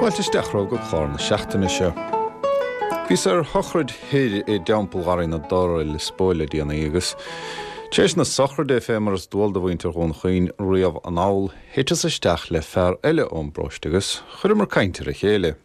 Fáilte isteach romhaibh go clár na seachtaine seo. Bhíos ar shochraid thoir i dTeampall Gharraí na dTor i Lios Póil le déanaí agus tar éis na sochraide, fé mar is dual do mhuintir Dhún Chaoin riamh anall, thiteas isteach le fear eile ón bparóiste agus chuireamar caint ar a chéile.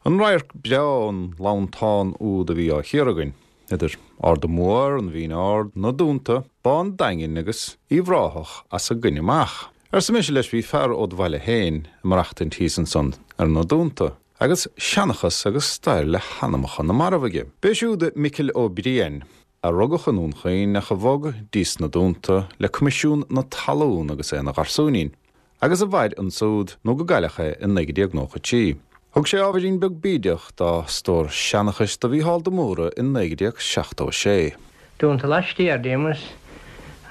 An radharc breá ón lantán úd a bhí á chíoradh againn, idir Arda Mór, an Mhín Ard, na Dúnta, Bá an Daingin agus Uíbh Ráthach as a gcoinne amach. Arsa mise leis, bhí fear ód bhaile féin ag maireachtaint thíos ansan ar na Dúnta, agus seanchas agus stair le hanamacha na marbh aige. B'é siúd Micil Ó Briain, a rugadh i nDún Chaoin ach a bhog dtís na Dúnta le Coimisiún na Talún agus é ina gharsúinín. agus a mhair ansúd nó go gcailleadh é i 1993. Thug sé ábhairín beag bídeach dá stór seanchais do Mhícheál de Mórdha i 1976. Dúnta laistiar díom agus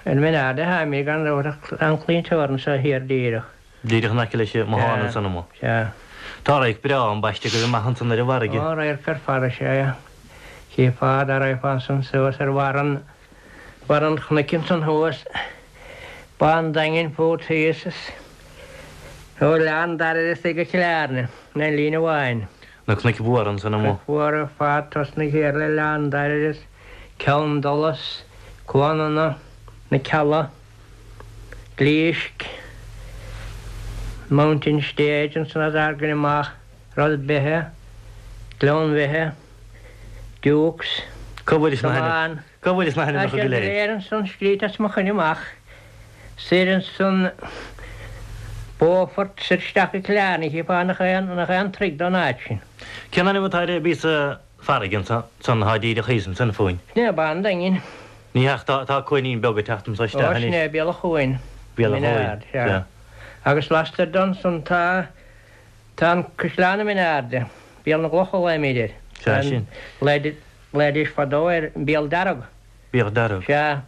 ar Mhin Ard a tháimid gan dabht ach tá an claí teorann seo thiar díreach. Díreach in aice leis an mbothán ansan amuigh. Sea. Tá radharc breá ambaiste agaibh amach ansan ar an bhfarraige. Ó, radharc ar fad is ea é. Chífeá dá raghfá ansan suas ar bharr an Barr an chnoic ansan thuas, Bá an Daingin fút thíos is ó Oileán Dara is go Cill Airne in aon líne amháin. Na cnoic mhóra ansan amuigh. Cnoic mhóra ar fad, tosnaigh thiar le Oileán Dara is Ceann Dolais, Cuan Fhionnaidh, Na Cealla, Glísc, Mountain Stage ansan as ár gcoinne amach, Ros Beithe, Gleann Bheithe, Dukes, Cá bhfuil na hainm? Cá bhfuil na hainmneacha go léir? Tá siad go léir ansan scríte as mo choinne amach. Soir ansan Beaufort, soir isteach go Cill Airne, chífeá nach é nach é an troigh don áit sin. Cén ainm atá ar an bpíosa farraige ansan atá díreach thíos ansan fúinn? Sin é Bá an Daingin. Ní hea ach tá tá cuainín beag ag teacht anso isteach anois. Ó sin é Béal an Chuain. Béal an Chuain, sea. Agus lastoir de ansan tá tá an Caisleán i Min Airde, Béal na gCloch a ghlaoimid air. Sea sin. Ghlaoidís fadó air an Béal Dearg. Béal Dearg. Sea.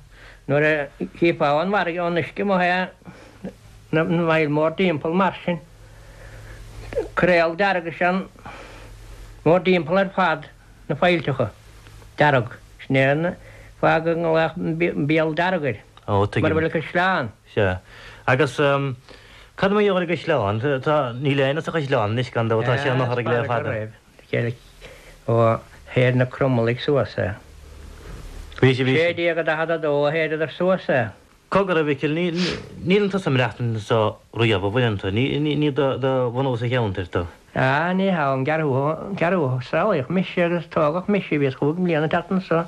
Nuair a chífeá ón bhfarraige, ón uisce amuigh é, na faill mórdtimpeall mar sin. Coiréal dearg is ea an mórdtimpeall ar fad, na faillteacha. Dearg. Sin é an fáth go nglaodh an Béal Dearg air. Ó, tuigim. Mar a bhfuil an caisleán. Sea. Agus cad mar gheall ar an gcaisleán? Tá, níl éinne sa chaisleán anois gan dabht, tá sé ina fhothraigh le fada. Chéile ó shaor na Cromailligh suas é. Bhí sé, bhí sé. 1642 a shaoradar suas é. Cogar, a Mhicil, ní, níleann tusa ag maireachtaint anso riamh, an bhfuileann tú? Ní, ní, ní do, do bhunús an cheantair tú. Ah, ní hea, ón gceathrú, ceathrú, saolaíodh mise agus tógadh mise, bhíos chúig mbliana ag teacht anso,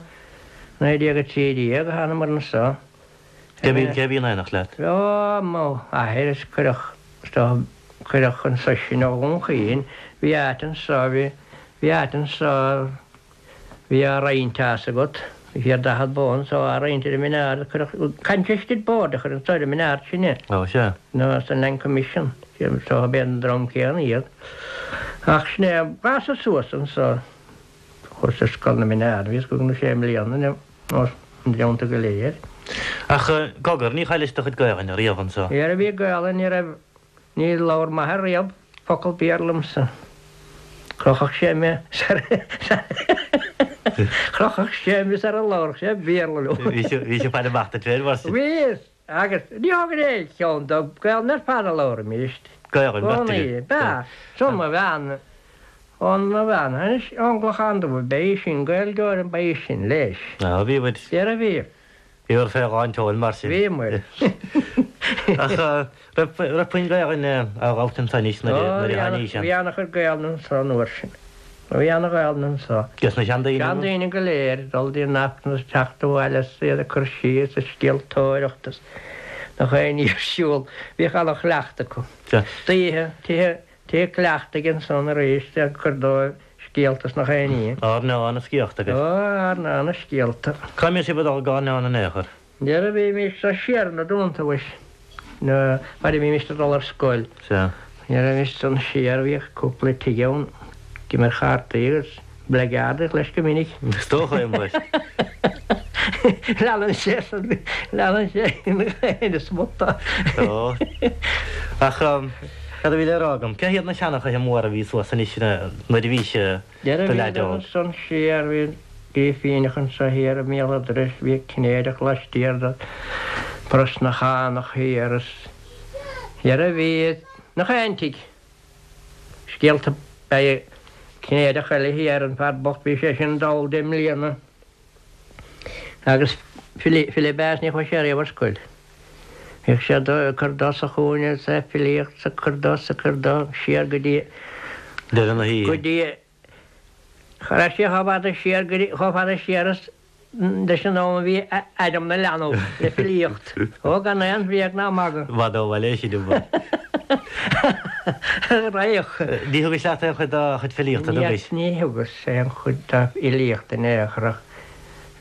1913 a thánamar anso. Cé bhí, cé bhí in éineacht leat? Ó, mo athair is cuireadh, is dócha, cuireadh anso sinn ó Dhún Chaoin, bhí áit anso, bhí, bhí áit anso, bhí á roinnt tá fhios agat, bhí thiar 40 bó anso á roinnt ar an Min Ard, cuireadh, Congested Board a chuir anso ar an Min Ard sinne. Ó, sea. Nó an Land Commission, is dócha b'é an dream céanna iad. Ach sin é, fásadh suas anso. Chuas ar scoil na Mine Ard, bhíos cúig nó sé mbliana nó na blianta go léir. Ach cogar, ní chaillis do chuid Gaelainne riamh anso? Nuair a bhí Gaelainn ní raibh, ní labhair m'athair riamh focal Béarla liomsa. Chrochfadh sé mé sar, chrochfadh sé mé sara labharfadh sé Béarla liom. Bhí sé, bhí sé ag faire amach duit féin mar sin. Bhí, agus ní thógainn aon cheann dó, Gaelainn ar fad a labhraímist. Gaelainn, b'ea Gcónaí, b'ea. So mo bhean, ón mo bhean, anois ón gClochán Dubh, ba í sin Gaeilgeoir, ba í sin leis. Á, bhí muid. Dhera bhí. Bhíobhair fé lán tseoil mar sin. Bhí muid. Ach raibh, raibh puinn Gaelainne á labhairt anso anois nuair a, nuair a tháinís ann? Bhí ana-chuid Gaelainne anso an uair sin. Bhí ana-Ghaelainn anso. Des na seandaoine? Seandaoine go léir, ag dul dtí an Aifreann is ag teacht abhaile is iad ag cur síos ag scéaltóireacht is nach aon ní ar siúl. Bhíodh ana-chleachtadh acu. D'oíche, tithe, tithe cleachtaidh ansan arís ag cur dóibh scéalta is nach aon ní. Airneán is sciorta agat. Ó, airneán is scéalta. Cá mbíodh sibh ag dul ag airneán in aon chor? Nuair a bhímis siar na Dúnta mhuis, nuair a bhímis ag dul ar scoil. Sea. Nuair a bhímis ansan siar bhíodh cúpla tigh ann ag imirt chártaí agus blackguard leis go minic. Is dócha é muis. Leanann sé san, leanann sé ina smut. Ó. Ach cad a bhí le rá agam? Cé hiad na seanchaithe móra a bhí suas anois nuair a bhís i do leaid óg? Ansan siar bhí Grífíneach anso thiar i mbéal an dorais, bhí Cinnéideach laistiar de Brosnachánach thiar is dhera bhí nach aon tigh. Scéalta beidh Cinnéideach eile thiar, an fear bocht, bhí sé sin dall deich mbliana agus file ab ea is ní chuaigh sé riamh ar scoil. Bhíodh sé ag cur dó sa chúinne is é ag filíocht is ag cur dó is ag cur dó siar go dtí Deireadh na hoíche. go dtí Cha raibh sé chomh fada siar go dtí chomh fada siar is leis an am a bhí Adam 'na leanbh le filíocht. Ó gan aon bhréag ná magadh. I bhfad ó bhaile é sin i bhfad. Raghadh. Ní thugais leat aon chuid dá chuid filíochta, thugais? Ní thugas aon chuid dá fhilíocht in aon chor ach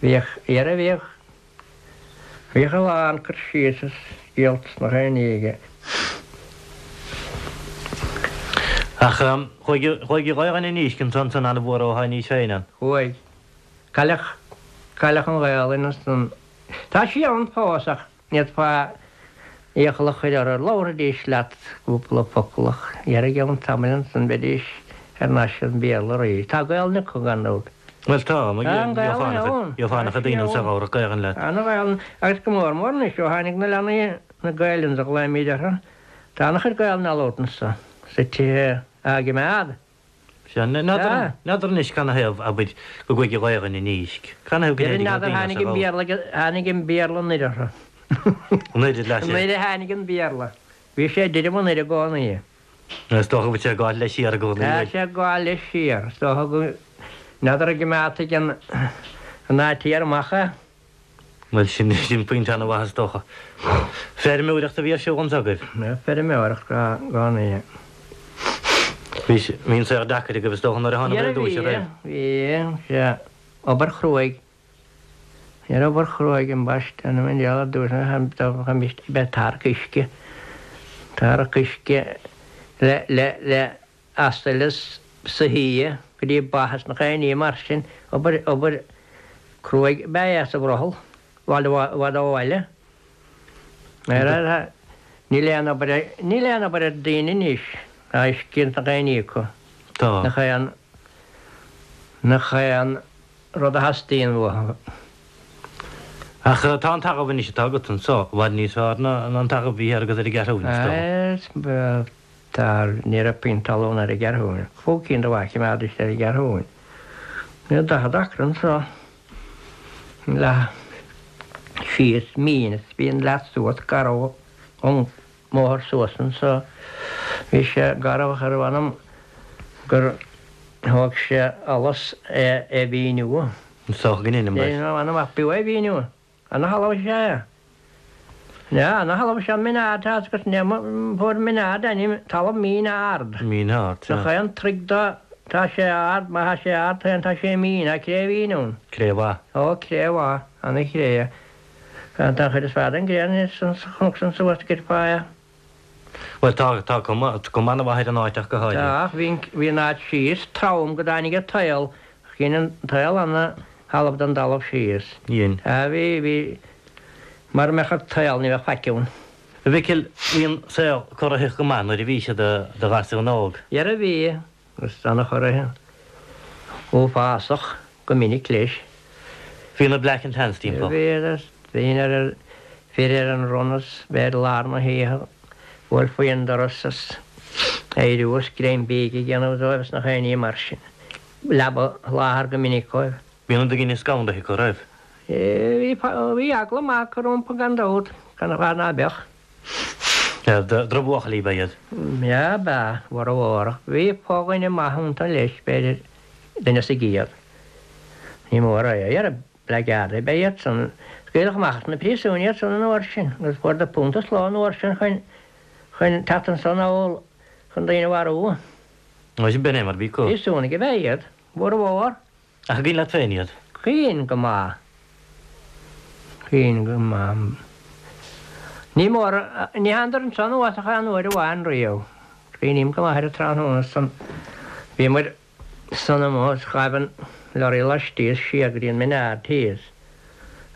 bhíodh, dhera bhíodh, bhíodh a lán cur síos is scéalta is nach aon ní aige. Ach chuaigh, chuaigh an Ghaelainn i ndísc ansan san an-mhór ó tháinís féin ann. Chuaigh. Cailleadh, cailleadh an Ghaelainn ansan. Tá sí ann fós ach ní fhéadfá iachall a chur orthu. Labharfaidís leat cúpla focal ach dhera i gceann tamaill ansan bheidís thar n-ais ar an Bhéarla arís. Tá Gaelainn acu gan dabht. Bhuel tá, Tá an Ghaelainn ann. Gheofá ana-chuid daoine anso a labharfadh Gaelainn leat. Tá an Ghaelainn, agus go mór mór anois ó tháinig na leanaí, na Gaelainns a ghlaoimíd orthu, tá ana-chuid Gaelainn á labhairt anso sa tithe á gcimeád. Sea, n'fheadar, n'fheadar anois canathaobh, abair, go gcuaigh an Ghaelainn i ndísc. Canathaobh go Dhera n-éirigh le n'fheadar daoine as tháinig a an ghabháil. Béarla, tháinig an Béarla anoir orthu. Anoir leis é. Anoir a tháinig an Béarla. Bhí sé ag druidim anoir i gcónaí. Is dócha go bhfuil sé ag gabháil leis siar i gcónaí, Tá bhfuil? sé ag gabháil leis siar. Is dócha go, n'fheadar an gcoimeádfaidh an, an áit thiar amach é. Bhuel, sin, sin pointe an-mhaith is dócha. Feirmeoireacht a bhí ar siúl anso agaibh? Feirmeoireacht i gcónaí. Bhí, bhí an saol deacair agaibh is dócha nuair a thánabhair ar dtúis, an raibh? Bhí, sea, obair chruaidh. Ní raibh obair chruaidh ambaiste, an bhfuil ar dtúis ag bheith ag tarrac uisce, tarrac uisce le, le, le asail is soithí go dtí ba is nach aon ní mar sin, obair, obair cruaidh ab ea é sa bhrothall, i bhfad, i bhfad ó bhaile. Níl aon obair, níl aon obair ar daoine anois, tá uisce is nach aon ní acu. Tá. Nach aon, nach aon rud a theastaíonn uathu. Ach tá an talamh anois atá agat anso i bhfad níos fearr ná an talamh a bhí thiar agat ar an gCeathrúin, is dócha. Tá, ní raibh puinn talún ar an gCeathrúin. Cúig cinn de bha a choimeádaidís ar an gCeathrúin. Bhí 40 acra anso, leath síos mín is bhí an leath suas garbh ón mbóthar suas anso. Bhí sé garbh ach ar mh'anam gur thóg sé allas é a mhíniú. Is dócha go ndeinim leis. Ar m'anam ach b'fhiú é a mhíniú. Ana-thalamh is ea é. Sea, ana-thalamh is ea Min Ard, tá agus fuair Min Ard ainm, talamh mín ard. Mín ard, sea. Nach aon troigh do, tá sé ard, má tá sé ard féin tá sé mín, tá cré mhín ann. Cré mhaith. Ó, cré mhaith, ana-chré. Tá an chuid is fearr den gcré sa chnoc san suas go dtí fá. Bhuel, tá, tá cuma, cuma ana-mhaith ar an áit ach go háirithe. Tá, ach bhí an, bhí an áit síos trom go dtáinig an t-aol, dhein an t-aol ana-thalamh den dtalamh síos. Dhein. Á, bhí, bhí, mara mbeadh an t-aol ní bheadh faic ann. A Mhicil, bhí an saol corraitheach go maith nuair a bhís i do ghasún óg. Dhera bhí. Agus ana-chorraitheach, uafásach go minic leis. Bhí na Black and Tans timpeall. Bhí agus bhínn ar ar fir ar an run is bheith i lár na hoíche bhuailfí an doras is éiriú is greim bídh a dhéanamh dóibh is nach aon ní mar sin. Leaba a sholáthar go minic dóibh. Bhí na daoine scanraithe acu, raibh? Bhí, bhí eagla maith acu rompu gan dabht, gan fáth ná beadh. Drochbhuachaillí ab ea iad. Sea, ab ea, mhór. Bhí fo-dhuine maith iontu leis, b'fhéidir, duine sa gcéad. Ní mór é. Dhera, blackguardaí ab ea iad san. Scaoileadh amach as na príosúin iad san an uair sin, agus fuaireadar punt sa ló an uair sin chun, chun teacht anso anall chun daoine a mharú. Bhuel, sin b'in é mar a bhí acu. Príosúnaigh ab ea iad, mhór mhór. Ach an cuimhin leat féin iad? Cuimhin go maith. Cuimhin go maith. Ní mór, ní thánadar anso anuas ach aon uair amháin riamh. Cuimhním go maith ar an tráthnóna san. Bhíomair san amuigh is ghaibh an lorry laistíos siar go dtí an Min Ard thíos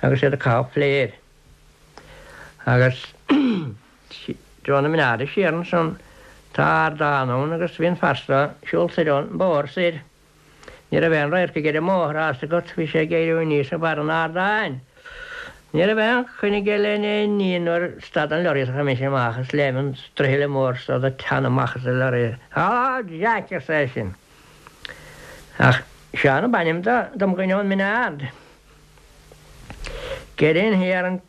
agus iad ag caitheamh fléir. Agus treo na Mine Arda siar ansan tá ardán ann agus bhí an fear so ag siúl soir ón mbóthar soir. Ní raibh aon radharc aige ar an mbóthar, tá 'fhios agat, bhí sé ag éiriú aníos ag barr an ardáin. Ní raibh aon choinne aige le aon ní nuair a stad an lorry is chuaigh mise amach is léim an struithle mór so de teann amach as an lorry. Halló Jack arsa eisean. Ach Seán ab ainm do dom dhuine ón Mine Ard. Get in here and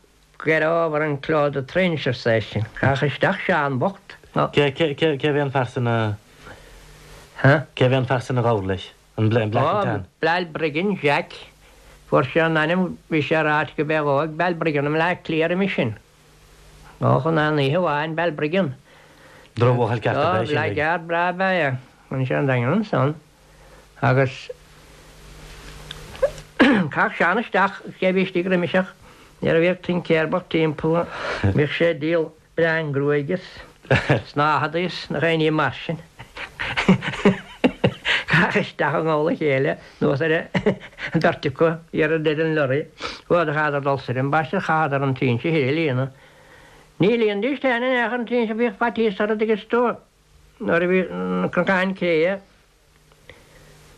get over and close the trench arsa eisean. Chaith isteach Seán bocht. Cé cé cé bhí an fear san a Huh? Cé bhí an fear san a ghabhair leis? An Black and Ó, Tan. Balbriggan Jack. Fuair sé an ainm, bhí sé ráite go b'é dhó ag Balbriggan i mBleá Cliath roimis sin. Ó, chun aon oíche amháin, Balbriggan. Drochbhuachaill ceart ab Ó, ea sin. blackguard breá ab ea é. Bhain sé an daingean ansan agus chaith Seán isteach cé bhí istigh roimis ach nuair a bhíodh tincéir bocht timpeall bhíodh sé ag díol Bleán gruaige is snáthaidí is nach aon ní mar sin. Chaith isteach i ngabhal a chéile anuas ar an bheirt acu thiar i ndeireadh an lorry. Chuadar chaitheadar dul soir ambaiste chaitheadar an trinse thoir a líonadh. Ní líonfaidís féin in aon chor an trinse bhíodh faitíos orthu dtuigeann tú nuair a bhí na cnocáin créidhe.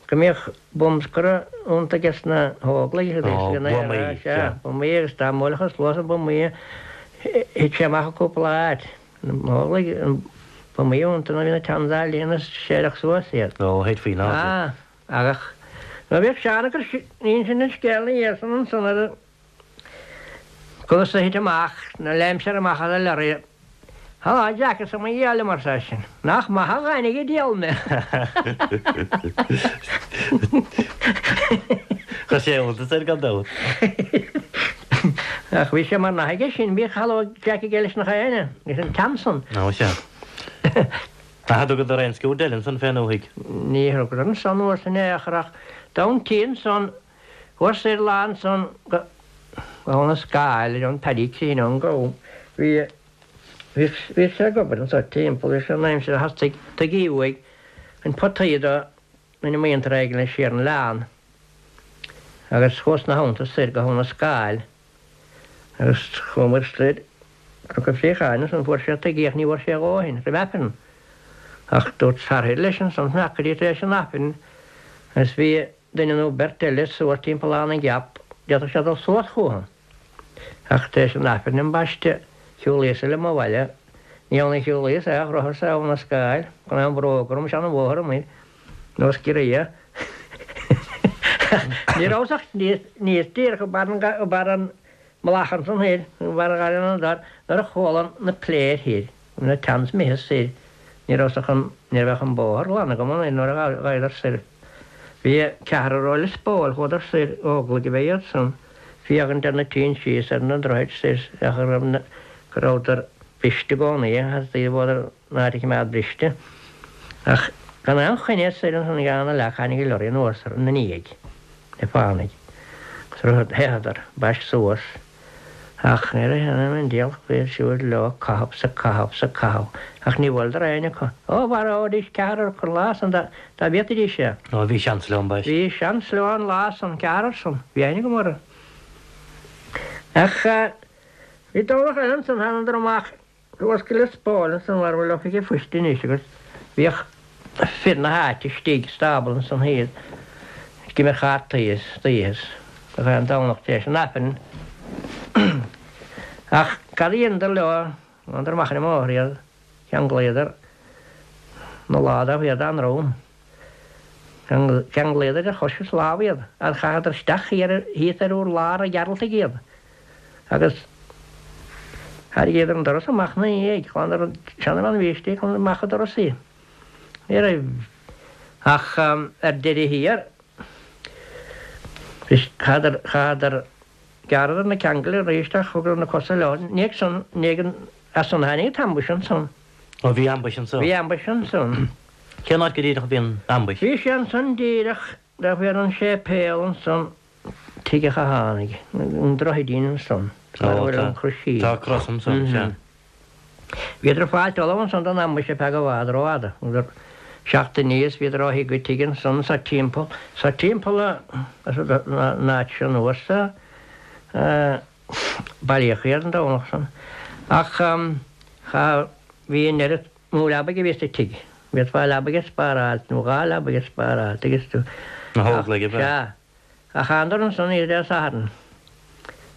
Go mbíodh bumscortha iontu aige sna hÓglaigh agus Ó, ina buamaí, sea, sea. buamaí agus dá mbuailfeadh sluas na buamaí thit sé amach i gcúpla áit. Na hÓglaigh, an buamaí iontu nuair a bhí na towns á líonadh séideadh suas iad. Ó, thit faoin airde. Ah, ach nuair a bhíodh Seán ag cur insint an scéil ina dhiaidh san ansan ar an Conas a thit amach, nuair a léim sé amach as an lorry. Halló Jack, arsa mo dhia liom, arsa eisean. Nach maith a dhainigh an diabhal mé! Chuir sé iontas air gan dabht. Ach bhí sé mar nath aige sin, bhíodh Halló Jack aige leis nach éinne, leis an t-am san. Ó sea. Ach thugadar aon sciúrd eile ansan fén ndúthaigh? Ní thugadar ansan uair san in aon chor ach d'fhan ansan Chuas soir lá ansan go Abha na Scáil ar an Paddy Crean ón gCom. Bhí bhí bhí sé ag obair anso timpeall leis an aimsir a theastaigh tuigí uaidh chun potaí do rinne muintir éigin leis siar an oileán agus chuas ina theannta soir go hAbha na Scáil agus chuamair soir Cnoc an Phréacháin ansan fuair sé tuigí ach ní bhfuair sé a dhóthain roimh Aifreann ach dúirt fear leis ansan fanacht go dtí tar éis an Aifrinn agus bhí duine nó beirt eile suas timpeall Abha na gCeap, d'fhéadfadh sé dul suas chucu. Ach tar éis an Aifrinn ambaiste, shiúlaíos-sa liom abhaile. Ní ann a shiúlaíos é, ach rotharsa Abha na Scáil, gan aon bhróg orm, sean an bhóthar amuigh, nós giorria. Ní rabhas ach níos díreach i mbarr an mhullach ansan thoir, i mbarr Gharraí na dTor, nuair a chuala na pléir thoir. Bhí na towns imithe soir, ní rabhas ach an, ní raibh ach an bóthar glan agam an nuair a ghabhadar soir. Bhí ceathrar ó Lios Póil, chuadar soir, Óglaigh ab ea iad san, féachaint ar na trinsí is ar na droichid soir ach go raibh na, go rabhadar briste i gcónaí, theastaigh bhóthar an áit a choimeád briste. Ach gan aon choinne soir ansan ag an leac tháinig an lorry anuas ina ndiaidh, le fánaidh, agus theitheadar, ambaiste suas. Ach ní raibh aon an diabhal faoi siúd leo caitheamh 's ag caitheamh 's ag caitheamh ach ní bhuaileadar éinne acu. Ó, mharóidís ceathrar acu an lá san dá bhféadfaidís é. Ó, bhí seans leo ambaiste. Bhí seans leo an lá san, ceathrar san. Bhí aithne agam orthu. Ach bhí Domhnach eile ansan, thánadar amach. Suas go Lios Póil ansan mar a bhfuil oifig an phoist anois agus bhíodh fir na háite istigh sa stábla ansan thiar ag imirt chártaí istoíche gach aon Domhnach tar éis an Aifrinn. Ach cad a dheineadar leo, thánadar amach ar an mbóthar iad, cheanglaíodar na lámha iad dá ndroim. Cheanglaíodar idir chois is lámh iad agus chaitheadar isteach thíos ar urlár an Ghearaltaigh iad agus tharraingíodar an doras amach ina ndiaidh, ghlanadar an seanbhean a bhí istigh, ghlanadar amach an doras í. Ní raibh ach ar deireadh thiar, chaitheadar, chaitheadar, ghearradar na ceangail arís ach thugadar na cosa leo. Ní ag san, ní ag an, as san a tháinig an t-ambush ansan. Ó bhí ambush ansan. Bhí ambush ansan. Cén áit go díreach a bhí an ambush? Bhí sé ansan díreach taobh thiar den séipéal ansan, tigh an Chathánaigh, an droichidín ansan, mar a bhfuil an croisín. Tá cros ansan, sea. Bhíodar ag fáilt ullamh ansan don ambush ar feadh i bhfad rófhada. Thugadar seachtain is bhíodar ó thigh go tigh ansan sa timpeall, sa timpeall an áit seo anuas a bailíodh iad an Domhnach san. Ach cha, bhí an oiread mó leabaidh a bhí sa tigh. Bhféadfá leabaidh a spáráilt, nó dhá leabaidh a spáráilt, agus tú. Na hÓglaigh ab ea? Sea. Ach thánadar ansan oíche Dé Sathairn.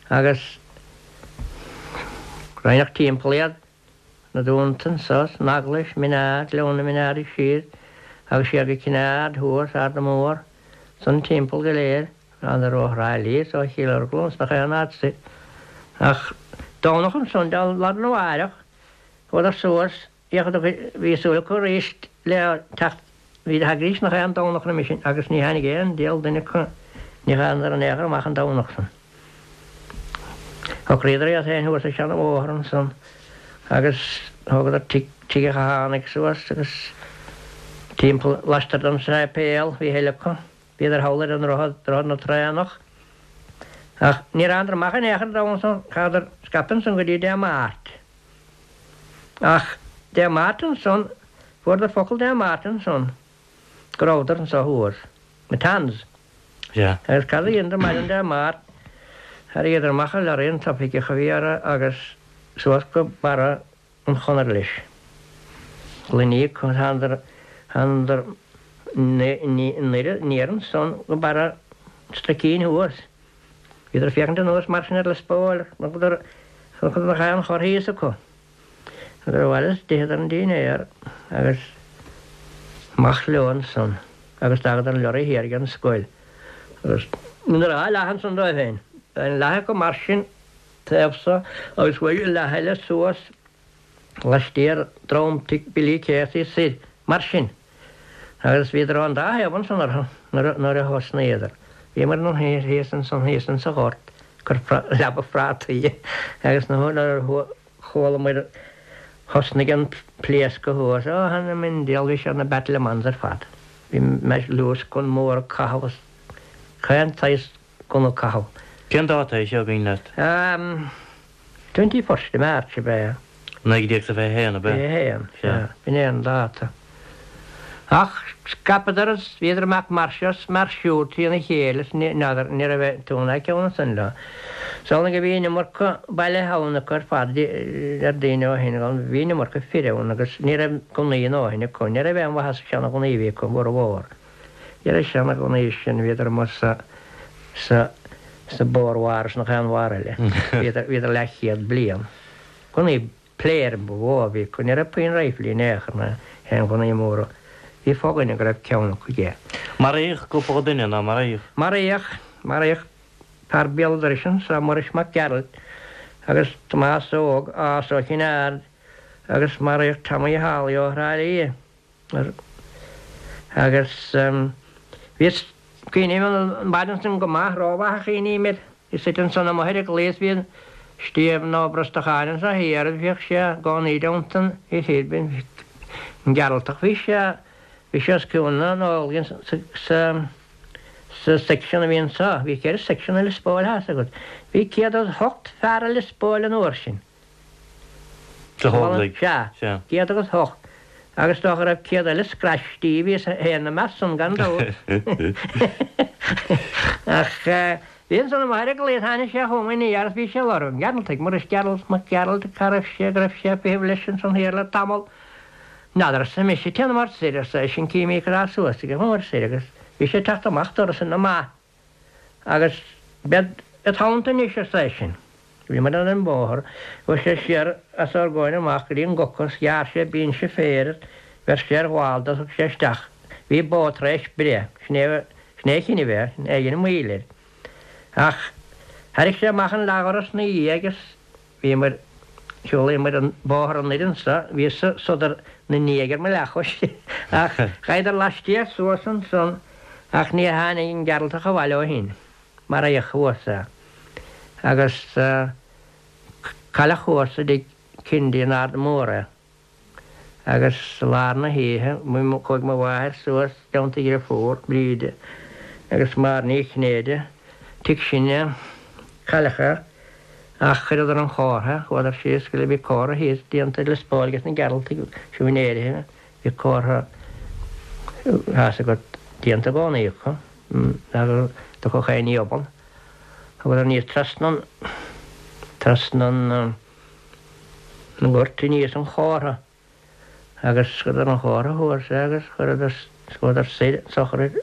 Agus. Roinneadh timpeall iad, na dúnta anso, san eaglais, Min Ard, Gleann na Min Ard siar agus siar go Cinn Aird thuas, Arda Mór, san timpeall go léir, thánadar ó Thrá Lí is ó Chill Orglan is nach aon áit soir. Ach Domhnach ansan, lá arna mháireach, chuadar suas, Bhí súil acu arís le teacht, bhí thagaidís nach aon Domhnach roimis sin agus ní tháinig aon diabhal duine acu, ní thánadar in aon chor amach an Domhnach san. Shocraíodar iad féin thuas ar seana-bhóthar ansan agus thógadar tigh, tigh a' Chathánaigh suas agus timpeall laistiar den séipéal, bhí a thuilleadh acu. Bhíodar thall ar an ndroichead, droichead na Traonach. Ach níor thánadar amach in aon chor an Domhnach san, chaitheadar scaipe ansan go dtí Dé Máirt. Ach Dé Máirt ansan, fuaireadar focal Dé Máirt ansan go rabhadar anso thuas, Matans. Sea. Agus cad a dheineadar maidin Dé Máirt, tharraingíodar amach an lorry an t-oifigeach a bhí orthu agus suas go barra an Chonair leis. Gloiní acu, thánadar, thánadar anoir ansan go barra an Struicín thuas. Bhíodar ag féachaint anuas mar sin ar Lios Póil, chonacadar nach aon chor thíos acu. Chuadar abhaile is d'itheadar an dínnéar agus amach leo ansan agus d'fhágadar an lorry thiar ag an scoil. Agus dheineadar dhá leath ansan dóibh féin. Bhí leath acu mar sin taobh so agus chuaigh an leath eile suas laistiar drom tigh Billy Casey soir mar sin. Agus bhíodar ón dá thaobh ansan orthu nuair a thosnaíodar. Bhíomar thíos ansan thíos insa ghort ag cur leaba phrátaí agus nuair a chualamar thosnaigh an pléascadh thuas, ó th'anam 'on diabhal bhí siad ina battlements ar fad. Bhí luascán mór ag caitheamh is chaon tsaghas gunna ag caitheamh. Cén dáta é seo an cuimhin leat? 21st of March ab ea? 1921 ab ea? 21, sea. B'in é an dáta. Ach scaipeadar is bhíodar amach mar seo is mar siúd trína chéile is ní n'fheadar, ní raibh tú ná ceann ansan leo. Is amhlaidh go bhí an iomarca bailithe ann acu ar fad ar daoine ó shin, bhí an iomarca fir ann agus ní raibh gunnaí a ndóthain acu, ní raibh aon mhaitheas sa seana-ghunnaí a bhí acu, bhformhór. Ní raibh seana-ghunnaí sin, bhíodar amuigh sa, sa, sa Boer War is nach aon war eile. Bhíodar, bhíodar leathchéad bliain. Gunnaí pléirim ba mhó a bhí acu, ní raibh puinn riflí in aon chor ná aon ghunnaí móra. Bhí fo-dhuine go raibh ceann acu aige. Maraíodh cúpla duine, nár maraíodh? Maraíodh, maraíodh fear béal dorais anso, Muiris Mac Gearailt, agus Tomás Óg, as ó Chinn Aird, agus maraíodh Tommy Holly ó Thrá Lí. Agus bhíos, cuimhním an mhaidin san go maith, rómhaith a chuimhním air. Bhíos suite ansan amuigh ar an gclaí is bhí Stiabhán Ó Brosnacháin anso thiar agus bhíodh sé i gcónaí i dteannta an fhir bhinn, an Gearaltach. Bhí sé, bhí sé os cionn na nÓglaigh sa, sa, sa section a bhí anso. Bhí cheithre section i Lios Póil, tá 'fhios agat. Bhí 108 fear i Lios Póil an uair sin. Sna hÓglaigh. Sea. 108. Agus dócha go raibh 100 eile scraistí, bhíos féin ina measc san gan dabht. Ach bhí ansan amuigh ar an gclaí, tháinig sé chugam aniar is bhí sé ag lorg an Ghearaltaigh, Muiris Gearalt, Mac Gearailt, cá raibh sé, go raibh sé ag feitheamh leis ansan thiar le tamall. N'fheadar, arsa mise, téanamar soir, arsa eisean, cífimid cad tá suas aige, chuamar soir agus bhí sé ag teacht amach doras ina maith. Agus bead i dteannta anois, arsa eisean. Bhíomar ar an mbóthar. Chuaigh sé siar os ár gcomhair amach go dtí an gcoca is ghearr sé binse féir is bheir sé ar ghallda is thug sé isteach. Bhí bó tar éis breith. Sin é, sin é a chinneadh é, sin é a dhein moill air. Ach thairrig sé amach an leathdhoras 'na dhiaidh agus Bhíomar, shiúlaíomar an bóthar anoir anso, bhí sodar na ndiaidh ar mo leathchois, ach ghabhadar laistiar suas ansan ach níor tháinig an Gearaltach abhaile ó shin, maraíodh thuas é agus cailleadh thuas i dtigh Kennedy in Ard Mór é. Agus i lár na hoíche, chuaigh mo mháthair suas i dteannta a dhriofúr, Bríde, agus Máire Ní Chinnéide, tigh sin a cailleadh é, ach chuireadar an chomhartha, chuadar síos go bhí comhartha thíos déanta i Lios Póil ages na Gearaltaigh, siúinéirithe, bhí comhartha, tá 'fhios agat, déanta i gcónaí acu, nach dtiocfadh aon ní obann. Chuadar aníos trasna an, trasna an. an ngort aníos an chomhartha agus chuireadar an chomhartha thuas é agus chuireadar chuadar soir an tsochraid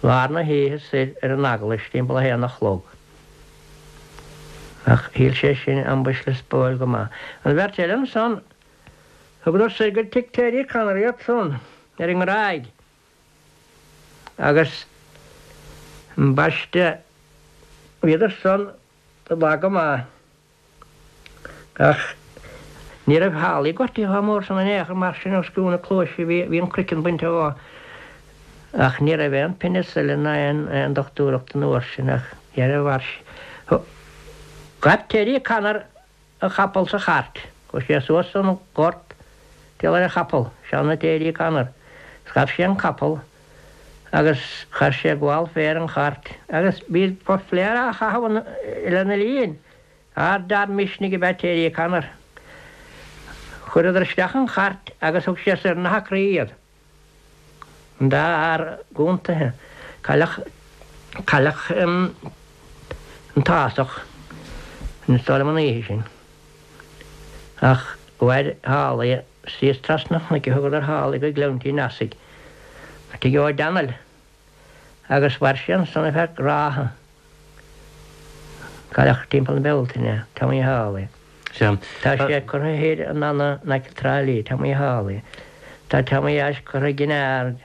lár na hoíche soir ar an eaglais timpeall a haon a chlog. Ach shíl sé sin ambaist Lios Póil go maith. An bheirt eile ansan, thugadar soir go tigh Terry Connor iad san, ar an nGráig, agus ambaiste, bhíodar san lag go maith. Ach ní raibh Holly gortaithe chomh mór san in aon chor mar sin os cionn na cluaise bhí an croiceann bainte dhó. Ach ní raibh aon penicillin ná aon dochtúireacht an uair sin ach dhera mhair sé. Ghabh Terry Connor a chapall sa chairt. Chuaigh sé suas an gort timpeall ar a chapall, seana Terry Connor, is ghabh sé an capall agus chuir sé gabhal fé ar an chairt agus bhí pléar á chaitheamh lena linn. Ardfhear misnigh ab ea Terry Connor. Chuireadar isteach an chairt agus thug sé soir na hAcraí iad. An dá fhear gúntaithe. Cailleadh, cailleadh an tÁghasach, is dóigh liom an oíche sin. Ach mhair Holly síos trasna an chnoic a thugadar Holly go Gleann Tí Neasaigh, tigh Ó Danail. Agus mhair sé ansan ar feadh ráithe. Cailleadh timpeall na Bealtaine, Tommy Holly. Sea. Tá sé curtha thoir in Annagh in aice Trá Lí, Tommy Holly. Tá Tommy Ashe curtha i gCinn Aird.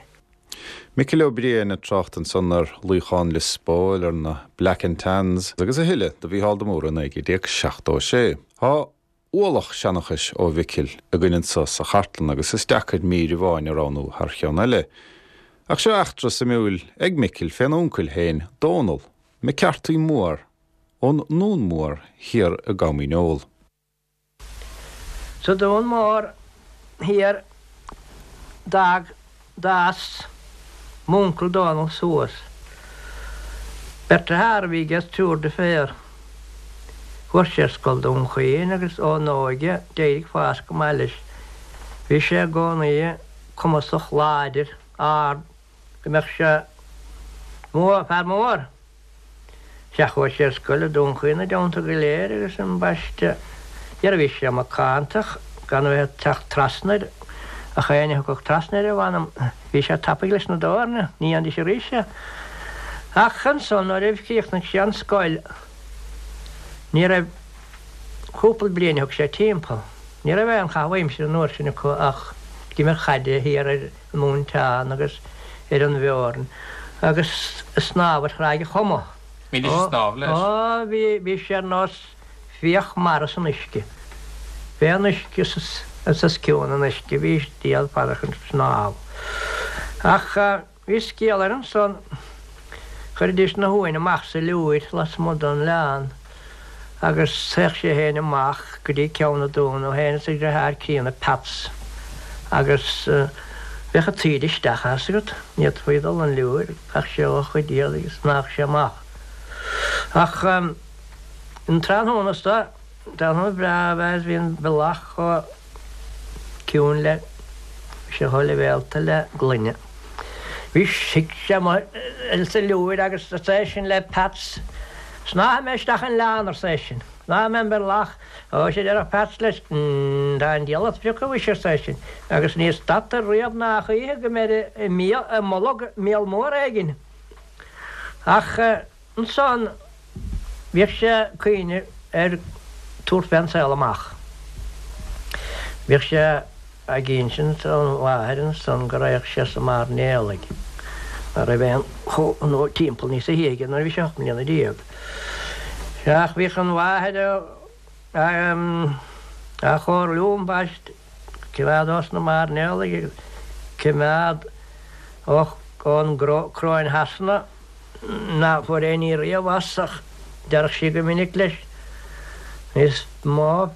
Micil Ó Briain ag trácht ansan ar luíochán Lios Póil, ar na Black and Tans agus a thuilleadh do Mhícheál de Mórdha i 1976. Tá ualach seanchais ó Mhicil againn anso sa chartlann agus is deacair mír amháin a roghnú thar cheann eile. Ach seo eachtra suimiúil ag Micil fén uncail féin, Dónall McCarthy Mór ón nDún Mór thiar i gCom Dhíneol. Sa Dún Mór thiar d'fhág d'fhás m'uncail Dónall suas. Beirt dearthár a bhí aige is triúr deirféar. Fuair sé ar scoil Dún Chaoin agus ón óige d'éirigh fás go maith leis. Bhí sé i gcónaí cumasach, láidir, ard, go mbeadh sé mór, fear mór. Sea, chuaigh sé ar scoil i Dún Chaoin na dteannta go léir agus ambaiste, dhera bhí sé macánta gan a bheith ag teacht trasna air, ach éinne a thiocfadh trasna air, a mh'anam, bhí sé tapaidh leis na doirne, ní dhéanfaidís arís é. Ach ansan nuair a chríochnaigh sé an scoil, ní raibh, cúpla bliain a thug sé timpeall, ní raibh aon chaitheamh aimsire an uair sin acu ach ag imirt chaide thiar ar, an Móinteán agus ar an bhFeoirn agus ag snámh ar Thráigh a' Choma. Bhídís ag snámh leis? Ó, bhí, bhí sé ar nós fiach mara san uisce. Fé an uisce is os cionn an uisce bhí diabhal fada chun snámh. Ach bhí scéal air ansan, chuiridís na huain amach sa liúir lasmuigh den oileán agus théadh sé féin amach go dtí Ceann na Dún, é féin is a dhriotháir críonna Peats, agus bheadh an taoide isteach as agat, ní fhéadfaí dul 'on liúir, chaith sé a chuid éadaigh agus shnámhadh sé amach. Ach an tráthnóna so, tráthnóna breá ab ea is bhí an bealach chomh ciúin le, bhí sé chomh leibhéalta le gloine. Bhí shuigh sé amuigh sa liúir agus arsa eisean le Peats, Snámhfaidh mé isteach an oileán, arsa eisean. Snámhfaidh mé an bealach. Ó, sea, a déarfadh Peats leis, tá an diabhal ort a phriocadh mhuise, arsa eisean, agus ní stadtar riamh ná choíche go mbeir i mbolg míol mór éigin. Ach ansan bhíodh sé ag cuimhneamh ar tabhairt fén saol amach. Bhíodh sé. Ag insint don mháthair ansan go raghadh sé sna mairnéalaigh, mar raibh aon chomh timpeall níosa shia aige nuair a bhí sé 18 mbliana. Sea, ach bhíodh an mháthair á chomhairliú ambaist coimeád ós na mairnéalaigh agus coimeád ón gCróin Shasana ná fuair aon ní riamh as ach déarfadh sí go minic leis, Is mó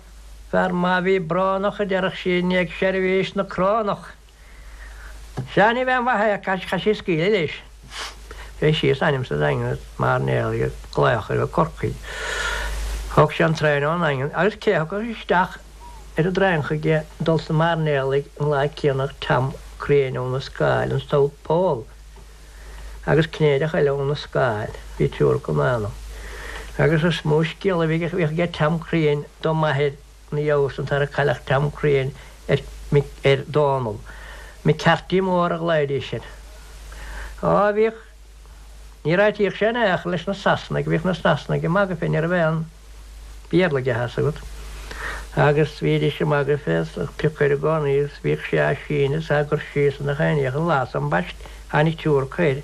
Fear maith a bhí brónach, a déarfadh sí, i ndiaidh seirbhís na crónach. Sea, ní bheadh mhaith é, chaith sí scaoileadh leis. Bhí síos ainm sa Daingean is mairnéalaigh ag glaoch air ó Corcaigh. Thóg sé an traein ón nDaingean agus cé a thiocfadh isteach ar an dtraein chuige dul sna mairnéalaigh an lá céanna ach Tom Crean óna Scáil, an South Pole, agus Cinnéideach eile óna Scáil, bhí triúr acu in anam. Agus is mó scéal a bhíodh aige Tom Crean do m'athair ina dhiaidh san tar a cailleadh Tom Crean ar ar Dónall. McCarthy Mór a ghlaoidís air. Á, bhíodh, níor áitíodh sé in aon chor leis na Sasanaigh, bhíodh na Sasanaigh ag magadh fé, ní raibh aon. Béarla aige, thá's agat. Agus bhídís ag magadh fé is ag piocadh air i gcónaí agus bhíodh sé á síneadh is á gcur síos i ngach aon ní ach an lá san ambaist tháinig triúr acu air.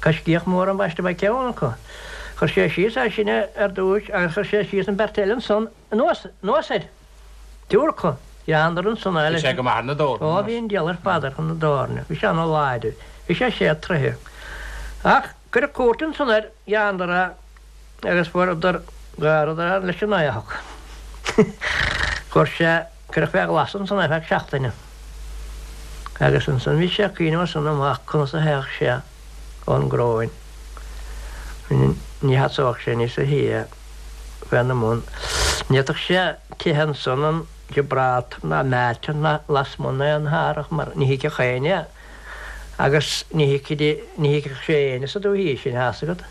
Coiscíoch mór ambaist ab ea ceann acu. Chuir sé síos é sin ar dtúis agus chuir sé síos an bheirt eile ansan anuas, anuas air. Triúr acu. Ghearradar ansan é leis. Bhí sé go maith ar na doirne. Ó bhí an diabhal ar fad air chun na doirne. Bhí sé ana láidir. Bhí sé sé troithe. Ach cuireadh cúirt ansan air, ghearradar é agus fuaireadar, ghearradar é leis an éitheach. Fuair sé, cuireadh fé ghlas ansan é feadh seachtaine. Agus ansan bhí sé ag cuimhneamh as san amach conas a théadh sé ón gCróin. Ní sheasódh sé níosa shia féna mbun. Ní fhéadfadh sé teitheadh ansan an Gibraltar ná Malta ná lasmuigh d'aon árthach mar ní thuigfeadh éinne é agus ní thuigfeadh sé éinne sa dúthaigh sin, thá's agat.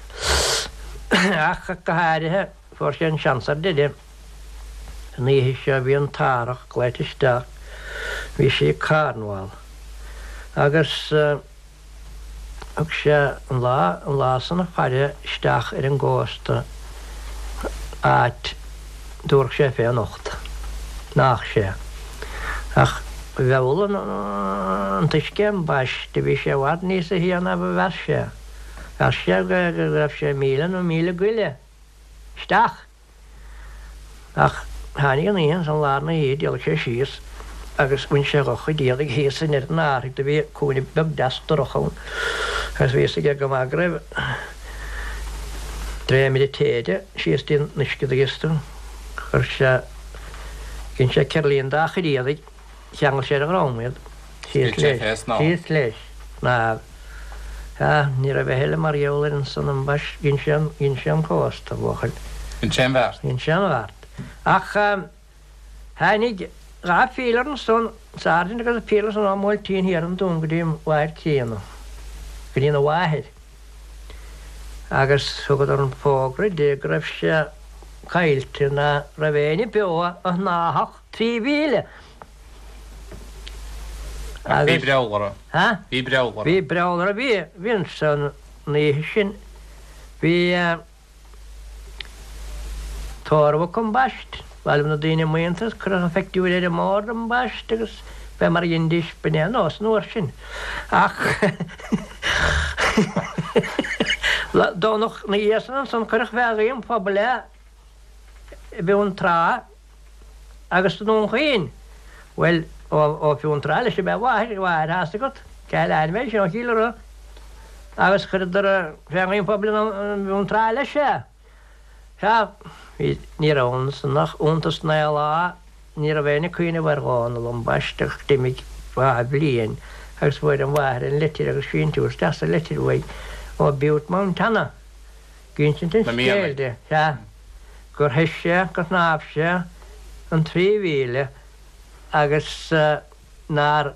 Ach go háirithe fuair sé an seans ar deireadh an oíche seo bhí an t-árthach glaoite isteach, bhí sé i Cornwall agus. Thug sé an lá, an lá san ag faire isteach ar an gcósta áit dtabharfadh sé fé anocht. Nach sé. Ach mheall an t-uisce ambaiste, bhí sé i bhfad níosa shia ná ba mheas sé. Mheas sé go raibh sé míle nó míle go leith isteach. Ach tháinig an oíche ansan lár na hoíche d'éalaigh sé síos agus bhain sé dha chuid éadaigh thíos i ndeireadh an árthaigh do bhí cúinne beag deas dorcha ann agus bhí fhios aige go maith go raibh dréimire téide síos dtí an uisce do ghios tú. Chuir sé, dhein sé ceirlín dá chuid éadaigh, cheangail sé ar a dhrom iad, síos leis, síos leis, snámh. Sea, ní raibh a thuilleadh mar gheall air ansan ambaist, dhein sé an, dhein sé an cósta, a bhuachaill. Dhein sé an bheart. Dhein sé an bheart. Ach tháinig dha phílear ansan, sergeant agus pílear ansan ón mBuailtín thiar an Dún go dtí an mháthair críonna, go dtí na mháthair. Agus thugadar an fógra di go raibh sé caillte, ná raibh éinne beo a shnámhfadh 3 mhíle. Ach bhí breall orthu. Ha? Bhí breall orthu. Bhí breall orthu. Bhí, bhí ansan an oíche sin, bhí tórramh acu ambaist, bhailigh na daoine maonta agus cuireadh an phictiúr ar an mbord ambaist agus fé mar a dheindís, b'in é an nós an uair sin. Ach Domhnach na dhiaidh san ansan cuireadh fé ghuí an phobail é i bhFionntrá. Agus i nDún Chaoin, bhuel, ó Fhionntrá leis ab ea a mháthair, a mháthair, thá's agat, cé le ainm é sin, ó Chill Ura, agus chuireadar fé ghuí an phobail i bhFionntrá leis é. Sea, bhí, ní raibh ansan ach iontas naoi lá, ní raibh éinne ag cuimhneamh ar Dhónall ambaiste ach d'imigh dhá bhliain agus fuair an mháthair an litir agus síntiús deas sa litir uaidh ó Butte Montana. Ag insint an scéil di, sea, gur theith sé, gur shnámh sé an 3 mhíle agus nár,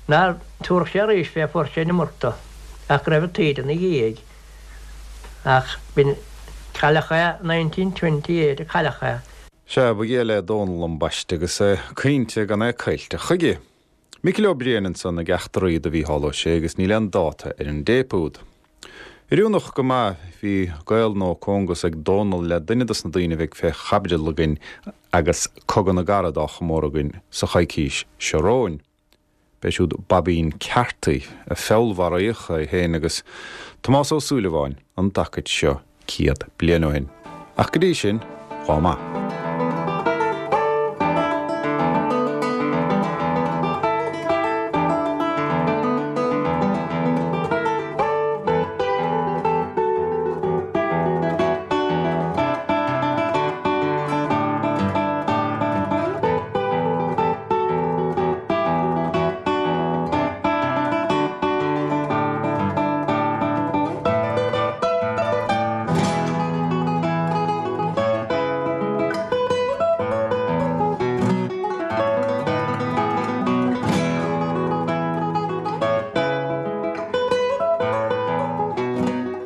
nár tabharfadh sé arís fé fuair sé an iomarca ach go raibh an taoide ina dhiaidh. Ach b'in, cailleadh é 1928 a cailleadh é. Sea, ba ghé le Dónall ambaiste agus é ag caointe gan é caillte chuige. Micil Ó Briain ansan ag eachtraí do Mhícheál Ó Sé agus níl aon dáta ar an dtéip úd. Oiriúnach go maith, bhí gaol nó cóngas ag Dónall le duine dos na daoine a bheidh fé chaibidil againn agus Cogadh na gCarad á chomóradh againn sa choicís seo romhainn. B'é siúd Baibín Carthy, a feallmharaíodh, é féin agus Tomás Ó Súilleabháin, an dtacaid seo 100 bliain ó shin. Ach go dtí sin, dhá maith.